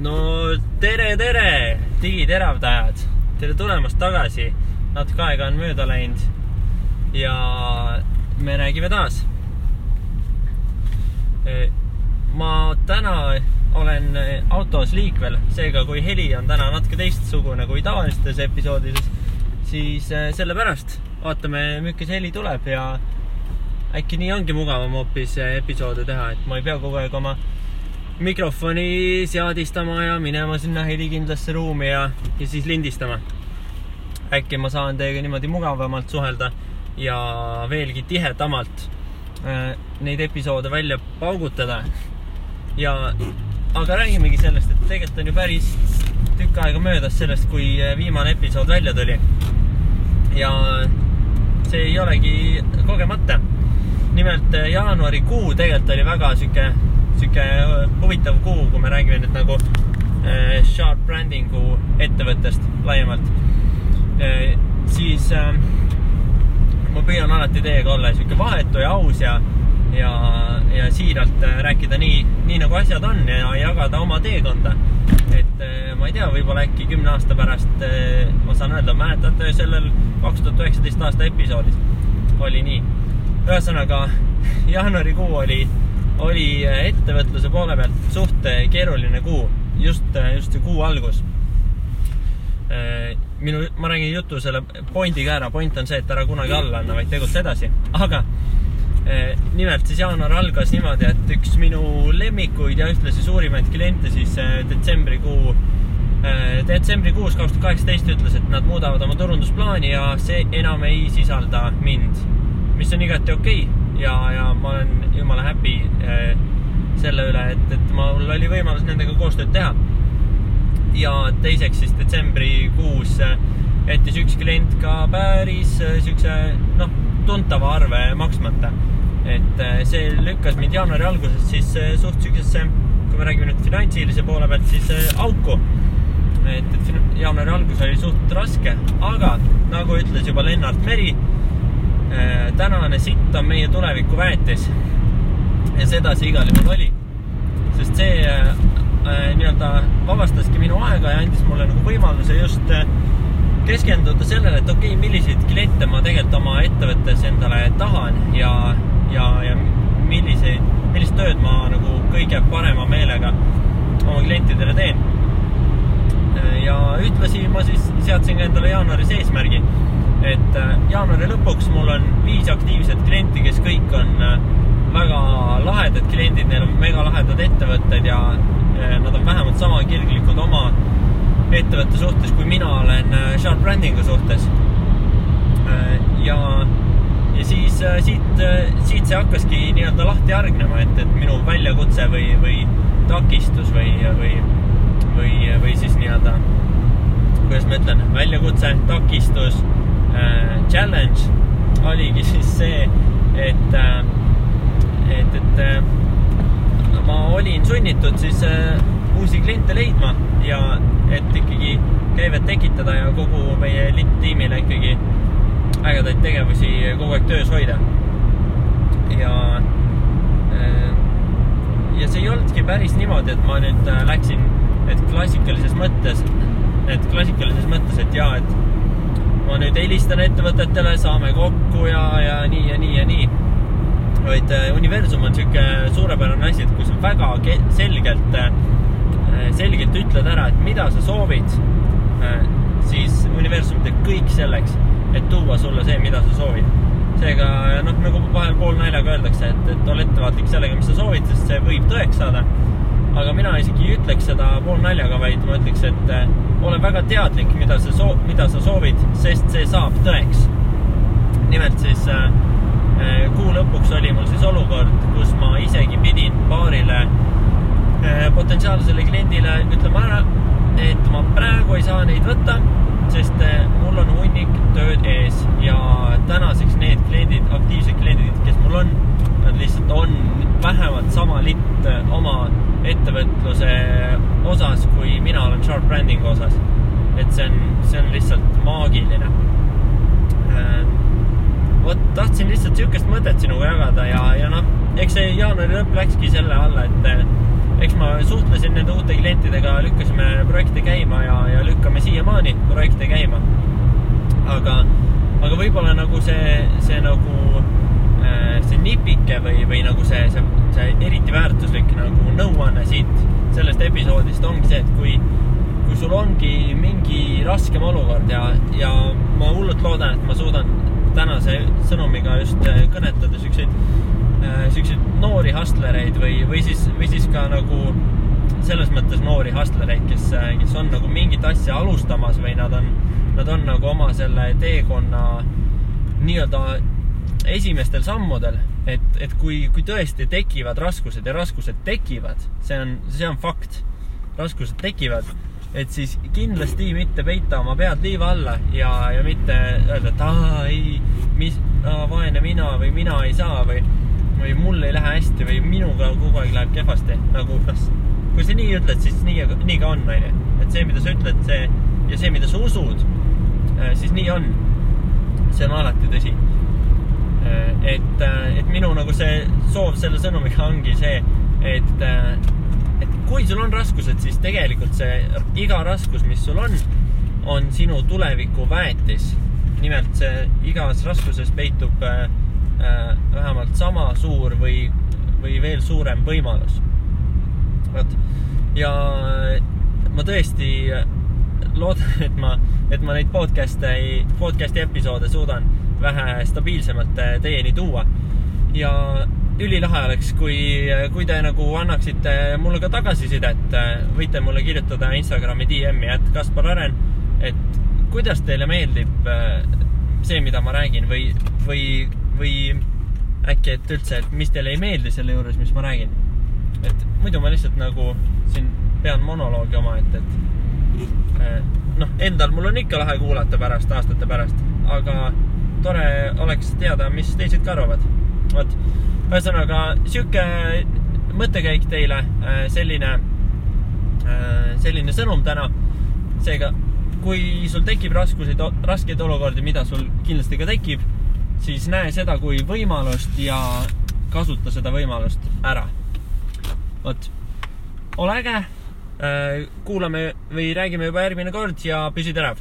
No tere, digiteravdajad! Tere tulemast tagasi. Natuke aega on mööda läinud ja me räägime taas. Ma täna olen autos liikvel, seega kui heli on täna natuke teistsugune kui tavalistes episoodides, siis sellepärast vaatame, milline heli tuleb ja äkki nii ongi mugavam hoopis episoode teha, et ma ei pea kogu aeg oma mikrofoni seadistama ja minema sinna helikindlasse ruumi ja siis lindistama. Äkki ma saan teiega niimoodi mugavamalt suhelda ja veelgi tihedamalt neid episoode välja paugutada. Aga räägimegi sellest, et tegelikult on ju päris tükk aega möödas sellest, kui viimane episood välja tuli. Ja see ei olegi kogemata. Nimelt jaanuari kuu tegelikult oli väga süke huvitav kuu, kui me räägime nüüd nagu Sharp Brandingu ettevõttest laiemalt. Siis ma püüan alati teiega olla süke vahetu ja aus ja siiralt rääkida nii nagu asjad on ja jagada oma teekonda. Et ma ei tea, võib-olla äkki 10 aasta pärast ma saan öelda, mäletate sellel 2019 aasta episoodis oli nii. Ühesõnaga, jaanuari kuu oli ettevõtluse poole pealt suht keeruline kuu, just see kuu algus. Ma räägin jutu selle pointiga ära. Point on see, et ära kunagi alla anna, vaid tegutse edasi. Aga nimelt siis jaanuar algas niimoodi, et üks minu lemmikuid ja ühtlasi suurimaid kliente siis detsembrikuus 2018 ütles, et nad muudavad oma turundusplaani ja see enam ei sisalda mind, mis on igati okei. Ja ma olen jumala happy selle üle, et mul oli võimalus nendega koostööd teha. Ja teiseks siis detsembrikuus jättis üks klient ka päris tuntava arve maksmata. Et see lükkas mind jaanuari alguses siis suht süksesse, kui me räägime nüüd finantsilise poole pealt, siis auku. Et jaanuari algus oli suht raske, aga nagu ütles juba Lennart Meri, tänane sitt on meie tuleviku väetis ja seda see igal juhul oli, sest see vabastaski minu aega ja andis mulle nagu võimaluse just keskenduda sellele, et okei, milliseid kliente ma tegelikult oma ettevõttes endale tahan ja millist tööd ma nagu kõige parema meelega oma klientidele teen. Ja ütlesi ma siis seadsin endale jaanuaris eesmärgi, et jaanuari lõpuks mul on 5 aktiivset klienti, kes kõik on väga lahedad kliendid, neil on mega lahedad ettevõtted ja nad on vähemalt sama kirglikud oma ettevõtte suhtes, kui mina olen Sharp Brandingu suhtes. Ja siis siit see hakkaski nii-öelda lahti argnema, et minu väljakutse või takistus või siis nii-öelda, kuidas ma ütlen, väljakutse, takistus, challenge oligi siis see, et ma olin sunnitud siis uusi kliente leidma ja et ikkagi käivet tekitada ja kogu meie tiimile ikkagi ägedaid tegevusi kogu aeg töös hoida. Ja see ei olnudki päris niimoodi, et ma nüüd läksin klassikalises mõttes, et ma nüüd helistan ettevõtetele, saame kokku ja nii. Vaid universum on selline suurepärane asi, et kui sa väga selgelt ütled ära, et mida sa soovid, siis universum teeb kõik selleks, et tuua sulle see, mida sa soovid. Seega, nagu vahel pool naljaga öeldakse, et ole ettevaatlik sellega, mis sa soovid, sest see võib tõeks saada. Aga mina isegi ei ütleks seda pool naljaga, vaid ma ütleks, et ole väga teadlik, mida sa soovid, sest see saab tõeks. Nimelt siis kuu lõpuks oli mul siis olukord, kus ma isegi pidin paarile potentsiaalsele kliendile ütlema ära, et ma praegu ei saa neid võtta, sest mul on hunnik tööd ees ja tänaseks need kliendid, aktiivsed kliendid, kes mul on, nad lihtsalt on vähemalt sama litt oma ettevõtluse osas, kui mina olen Sharp Brandingu osas. Et see on lihtsalt maagiline. Tahtsin lihtsalt sihukest mõtet sinuga jagada ja eks see jaanuari lõpp läkski selle alla, et eks ma suhtlesin nende uute klientidega, lükkasime projekte käima ja lükkame siiamaani projekte käima. Aga võib-olla nagu see nagu see nipike või nagu see eriti väärtuslik nagu nõuanne siit sellest episoodist ongi see, et kui sul ongi mingi raskem olukord ja ma hullult loodan, et ma suudan tänase sõnumiga just kõnetada sükseid noori hustlereid või siis ka nagu selles mõttes noori hustlereid, kes on nagu mingit asja alustamas või nad on nagu oma selle teekonna nii-öelda esimestel sammudel, et kui tõesti tekivad raskused ja raskused tekivad, see on fakt, raskused tekivad, et siis kindlasti mitte peita oma pead liiva alla ja mitte öelda, et vaene mina või mina ei saa või mul ei lähe hästi või minuga kogu aeg läheb kehvasti. Nagu, kui sa nii ütled, siis nii ka on, et see, mida sa ütled, ja see, mida sa usud, siis nii on. See on alati tõsi. Et minu nagu see soov selle sõnumiga ongi see, et kui sul on raskused, siis tegelikult see iga raskus, mis sul on sinu tuleviku väetis. Nimelt see igas raskuses peitub vähemalt sama suur või veel suurem võimalus. Ja ma tõesti loodan, et ma neid podcasti episoode suudan vähe stabiilsemalt teieni tuua. Ja ülilahe oleks, kui te nagu annaksite mulle ka tagasisidet, võite mulle kirjutada Instagrami DM-i @KasparAren, et kuidas teile meeldib see, mida ma räägin või äkki, et üldse, et mis teile ei meeldi selle juures, mis ma räägin. Et muidu ma lihtsalt nagu siin pean monoloogi oma, et endal mul on ikka lahe kuulata aastate pärast, aga tore oleks teada, mis teised ka arvavad. Ühesõnaga, siuke mõttekäik teile, selline sõnum täna. Seega, kui sul tekib raskeid olukordi, mida sul kindlasti ka tekib, siis näe seda kui võimalust ja kasuta seda võimalust ära. Ole äge, kuulame või räägime juba järgmine kord ja püsi terav!